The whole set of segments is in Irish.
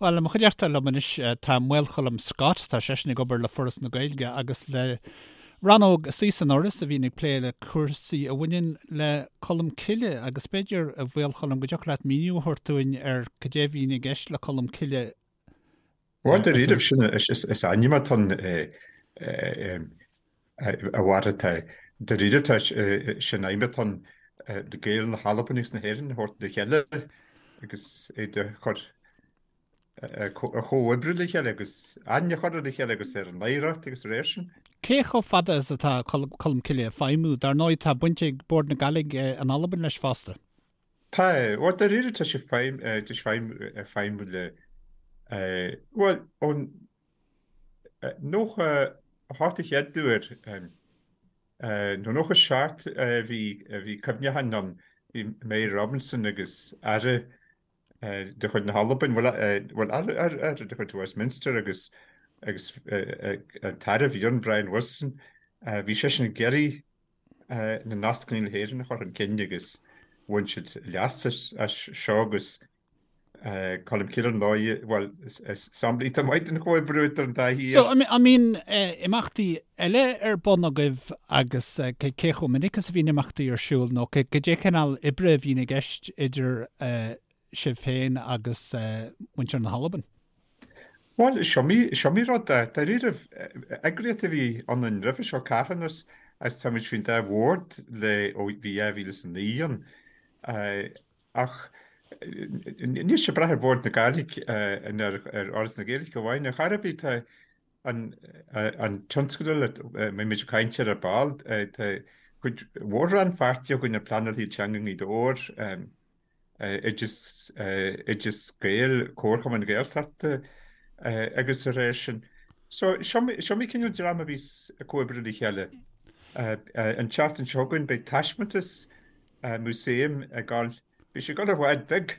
Bhuel, i mo chuideachta liom anois tá Maolcholm Scott, tá seisean ag obair le Foras na Gaeilge agus le rannóg istigh san Fhoras a bhíonn ag plé le cúrsaí a bhaineann le Colm Cille agus b'fhéidir, a Mhaolchoilm, go dtiocfadh leat míniú a thabhairt dúinn ar cad é a bhíonn i gceist le Colm Cille Bhuel, dáiríribh, sin is ainm atá ann a Mháire, tá dáiríribh tá sin aidhm atá ann na Gaeil na hAlban agus na hÉireann a thabhairt le chéile agus iad a chur a chomhoibriú le chéile agus aithne a chur ar a chéile agus ar an oidhreacht agus dá réir sin. Cé chomh fada is atá Colm Cille ag feidhmiú? Dar ndóigh tá baint ag Bord na Gàidhlig in Albain leis fosta. Tá, bhuel, dáiríre tá sé feidhm, tá sé feidhm, feidhmiú le, bhuel, ón 98 a chéad uair, nó 97 a bhí, bhí cuimhneachán ann, bhí Mary Robinson agus Aire de chuid na hAlban, bhuel, bhuel, Aire, Aire, Aire de chuid Westminster agus, agus an tAire a bhí ann, Brian Wilson, bhí seisean ag iarraidh na nascanna le hÉirinn a chur chun cinn agus bhain siad leas as seo agus Colm Cille ar ndóigh, bhuel, is sampla iontach maith den chomhoibriú idir an dá thír. So, an mbíonn imeachtaí eile ar bun agaibh agus cé chomh minic is a bhíonn imeachtaí ar siúl nó cad é cineál oibre a bhíonn i gceist idir sibh féin agus muintir na hAlban? Bhuel, is iomaí rud é. Dáiríribh, eagraíocht a bhí ionainn roimhe seo, carthanas, agus táimid faoin dá bhord le ó bhí 2009 ann. Ach níl sé ag brath ar Bhord na Gàidhlig nó ar Fhoras na Gaeilge amháin. Ar chor ar bith, tá an tionscadal a mbeidh muid ag caint air ar ball, tá cuid mhór rannpháirtí againn ar Pleanáil Teanga i nGaoth Dobhair, Oideas, Oideas Gael, Comharchumann Gaeltachta agus dá réir sin. So, is iomaí cineál dream a bhíos ag comhoibriú le chéile. An tseachtain seo chugainn beidh taispeántas músaeim ag gabháil, beidh sé ag gabháil i bhád beag,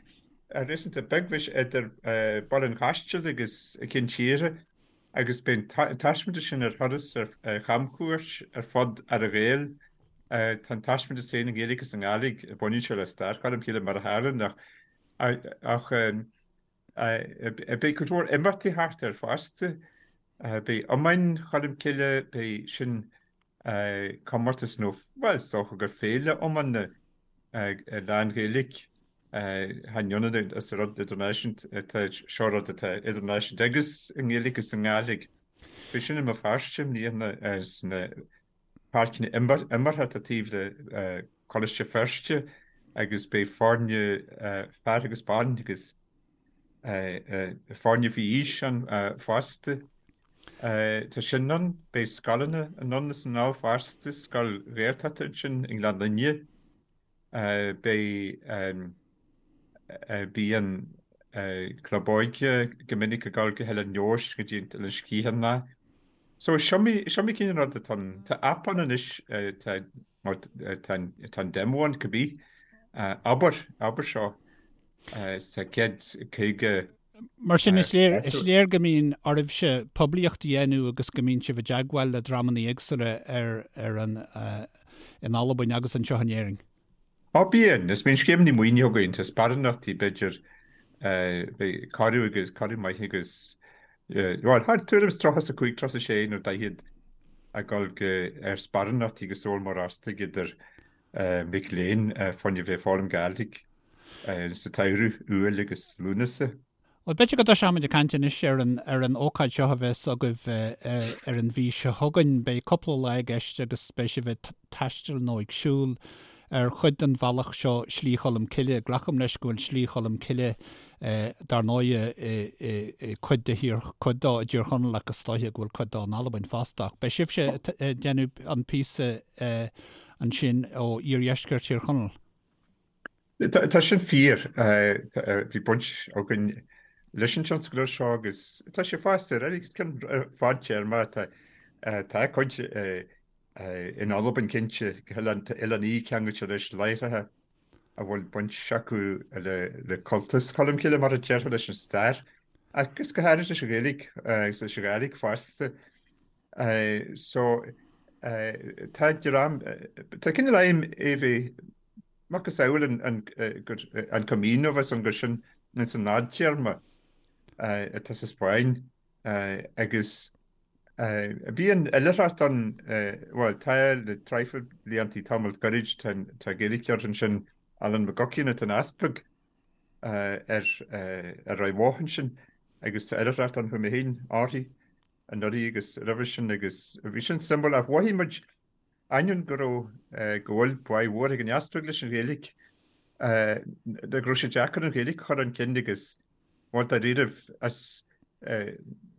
réasúnta beag, beidh sé idir Baile an Chaistil agus Cinn Tíre. Agus beidh an taispeántas sin ar thuras ar chamchuairt ar fud Earra-Ghael. Tá an taispeántas féin i nGaeilge agus i nGàidhlig, baineann sé le stair Cholm Cille mar a tharlaíonn ach beidh cuid mhór imeachtaí thart air fosta. Beidh iomáin Cholm Cille, beidh sin comórtas nó, bhuel, is dócha gur féile iomána lán-Ghaeilge. Chan ionann is rud idirnáisiúnta, tá seo rud atá idirnáisiúnta agus i nGaeilge agus i nGàidhlig. Beidh sin i mBéal Feirste i mbliana sna páirceanna imeartha atá taobh le Coláiste Feirste agus beidh foirne fear agus ban agus foirne faoi aois ann fosta. Tá sin ann, beidh scoileanna anonn is anall fosta, scoil Ghaeltachta ansin i nGleann Fhinne. Beidh bíonn club óige go minic ag dul go hOileán Leodhais go dtí an Oileán Sgitheanach. So is iomaí is iomaí cineál rud atá ann. Tá aip ann anois tá mar tá tá an demo ann cibé. Abair abair seo tá 150 Mar sin is léir is léir go mbíonn oraibhse poiblíocht a dhéanamh agus go mbíonn sibh i dteagmháil le dreamanna éagsúla ar ar an in Albain agus anseo in Éirinn. Á bíonn, is bíonn scéimeanna maoinithe againn, tá sparánachtaí b'fhéidir beidh corradh agus corradh maith agus bhuel thart tuairim is 35, 36 nó 40 ag dul go ar sparánachtaí go Sabhal Mòr Ostaig idir mic léinn fá choinne bheith ag foghlaim Gàidhlig sa tsamhradh, Iúil agus Lúnasa. Bhuel, b'fhéidir go dtoiseoimid ag caint anois ar an ar an ócáid seo a bheas agaibh ar an mhí seo chugainn. Beidh cúpla lá i gceist agus beidh sibh ag taisteal nó ag siúl ar chuid den bhealach seo, Slí Cholm Cille. Glacaim leis go bhfuil Slí Cholm Cille, dar ndóighe, i cuid de thír, cuid dó i dTír Chonaill ach is dóiche go bhfuil cuid dó in Albain fosta. Ach beidh sibhse ag déanamh an píosa ansin ó iardheisceart Thír Chonaill. Tá sin fíor. Bhí baint againn leis an tionscadal seo agus tá sé fosta ar ceann fadtéarma. Tá cuid in Albain cinnte, Oileán Í ceangailte leis láithreacha a bhfuil baint acu le cultas Cholm Cille mar a déarfá leis an stair agus go háirid leis an Ghaeilge agus leis an Ghàidhlig fosta. So tá dream, tá cineál aidhm é bheith macasamhail an an Camino bheith an gur sin ins an fhadtéarma. Atá sa Spáinn agus bíonn oilithreacht ann, bhuel tá le traidhfil bliantaí, tamall gairid, tá Gaeilgeoir ansin, Alan McGuckian atá ina easpag ar Ráth Bhoth ansin agus tá oilithreacht ann, chuaigh mé féin uirthi anuraidh agus roimhe sin agus bhí sin suimiúil ach mhothaigh muid ainneoin go raibh, go bhfuil báidh mhór ag an easpag leis an Ghaeilge, go raibh sé deacair an Ghaeilge a chur chun cinn agus bhuel dáiríribh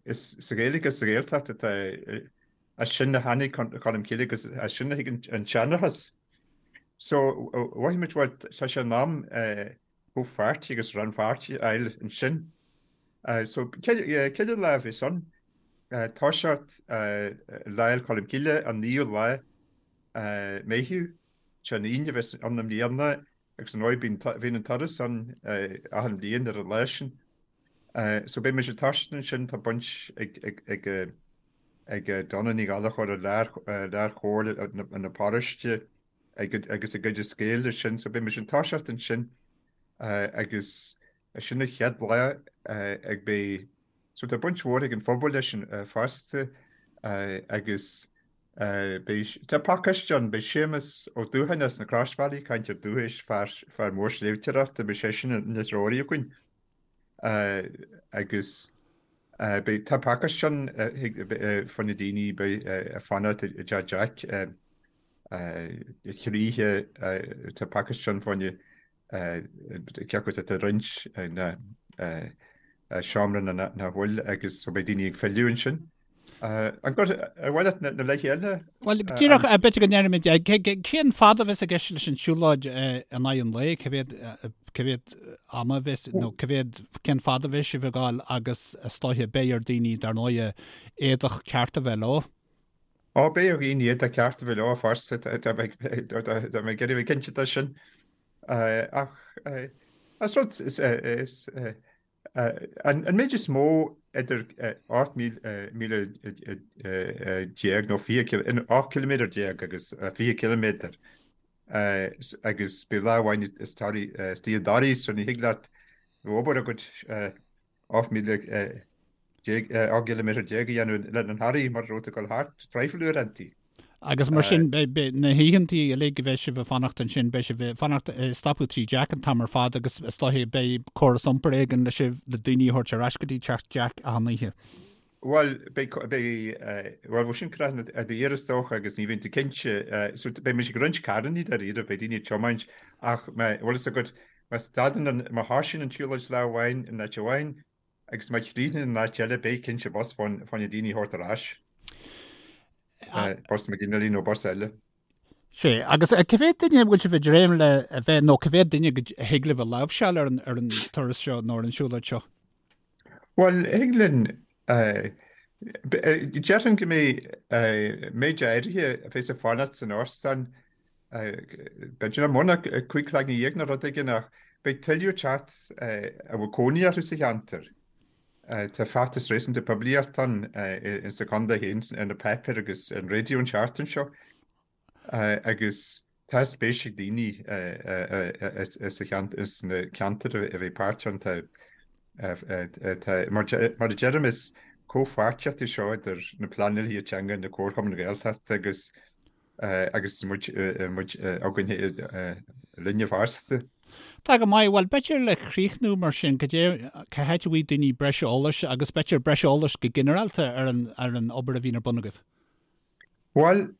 is sa Ghaeilge agus sa Ghaeltacht atá, as sin a tháinig Colm Cille agus as sin a thig an seanchas. So mhothaigh muid bhuel tá sé in am comhpháirtí agus rannpháirtí a fháil ansin. So céad lá a bheas ann, toiseacht Lá Fhéile Colm Cille an 9ú lá Meitheamh, sé an Aoine a bheas ann i mbliana agus ar ndóigh bíonn an turas ann achan bhliain ar an lá sin. So beidh muid ag toiseacht ansin, tá baint ag ag Donna Ní Ghallchóir i lár-chomhairle na paróiste agus ag Oideas Gael leis sin, so beidh muid ag toiseacht ansin agus sin an chéad lá ag beidh, so tá baint mhór ag an phobal leis sin fosta agus beidh, tá pacáiste ann, beidh Séamus Ó Dúcháin as na Croisbhealaí, cainteoir dúchais, fear, fear mór sléibhteoireachta, beidh seisean ina threoraí againn agus beidh, tá pacáiste ann fá choinne daoine beidh ag fanacht i dTeach Jack. Chroíthe tá pacáiste ann fá choinne cé acu atá roinnt na seomra nó nach bhfuil agus so beidh daoine ag filleadh ansin. An mhaith leat na laethe eile? Bhuel, díreach b'fhéidir go ndéarfaimid, cén fad a bheas i gceist leis an siúlóid in aghaidh an lae, cá mhéad, cá mhéad ama a bheas, nó cá mhéad, cén fad a bheas sibh ag gabháil agus is dóiche beidh ar daoine dar ndóighe éadach ceart a bheith leo. Ó, beidh ar dhaoine éadach ceart a bheith leo fosta, tá mé ag iarraidh a bheith cinnte de sin. Ach is rud, is, an méid is mó idir 18 míle nó 20, 18 ciliméadar agus 20 ciliméadar agus beidh lá amháin istigh i dToraigh so ní thig leat bheith obair agat 18 míle, 18 gciliméadar a dhéanamh le an Thoraigh mar a raibh tú ag dul thart traidhfil uaireantaí. Agus mar sin, beidh na hoícheantaí uilig a bheidh sibh ag fanacht ansin, beidh sibh ag fanacht, ag stopadh tigh Jack an t-am ar fad agus is dóiche beidh córas iompair éigin le sibh, le daoine a thabhairt ar ais go dtí teach Jack achan oíche. Bhuel, beidh, beidh, bhuel, bheadh sin craitheann a d'iarr is dócha agus ní bhíonn tú cinnte, so beidh muid ag roinnt carrannaí dáiríre, beidh daoine ag tiomáint ach má, bhfuil fhios agat, Má stadann an, má thosaíonn an tsiúlóid lá amháin in áit amháin agus má chríochnaíonn in áit eile beidh cinnte bus fá choinne daoine a thabhairt ar ais. Bus McGinley nó bus eile. Sea, agus cá mhéad duine a bhfuil sibh ag dréim le a bheith, nó cá mhéad duine a thig libh a láimhseáil ar an, ar an turas seo nó ar an siúlóid seo? Bhuel, thig linn, déarfainn go mbeidh méid áirithe a bheas ag fanacht san óstán, b'fhéidir nach mó ná 15 cloigne nó rud éigin ach beidh tuilleadh ag teacht a bhfuil cónaí orthu sa cheantar. Tá feachtas réasúnta poiblíochta ann insa chontae féin, ar na páipéir agus ar an raidió an tseachtain seo. Agus tá spéis ag daoine sna ceantair a bheidh páirteach ann. Tá, mar a deirim, is comhpháirtíocht é seo idir na pleanálaithe teanga, na comharchumainn Ghaeltachta agus agus muid againn linne fosta. Tá go maith. Bhuel, b'fhéidir le críochnú mar sin, cad é, cá háit a bhfaighidh daoine breis eolais agus b'fhéidir breis eolais go ginearálta ar an obair a bhíonn ar bun agaibh? Bhuel,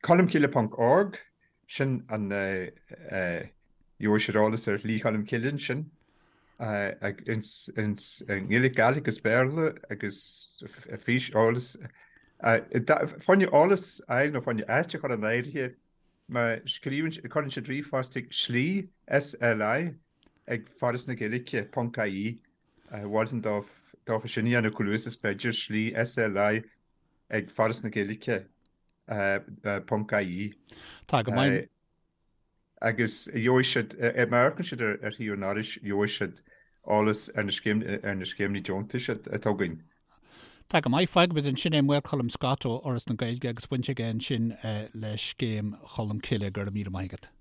Colmcille ponc org, sin an gheobhaidh siad eolas ar Shlí Cholm Cille ansin, ins nGaeilge, Gàidhlig agus Béarla agus fís eolas. Fá choinne eolas a fháil nó fá choinne áit a chur in áirithe, má scríobhann, cuireann siad ríomhphost chuig slí, SLI, ag Foras na Gaeilge ponc IE, mholfainn dófa sin a dhéanamh chomh luath is is féidir, slí, SLI, ag Foras na Gaeilge ponc IE. Tá go maith. Agus gheobhaidh siad, má amharcann siad ar shuíomh an Fhorais, gheobhaidh siad eolas ar na scéimeanna deontais atá againn. Tá go maith. Fágfaimid ansin é Maolcholm Scott ó Fhoras na Gaeilge agus baint aige ansin le Scéim Cholm Cille. Go raibh míle maith agat.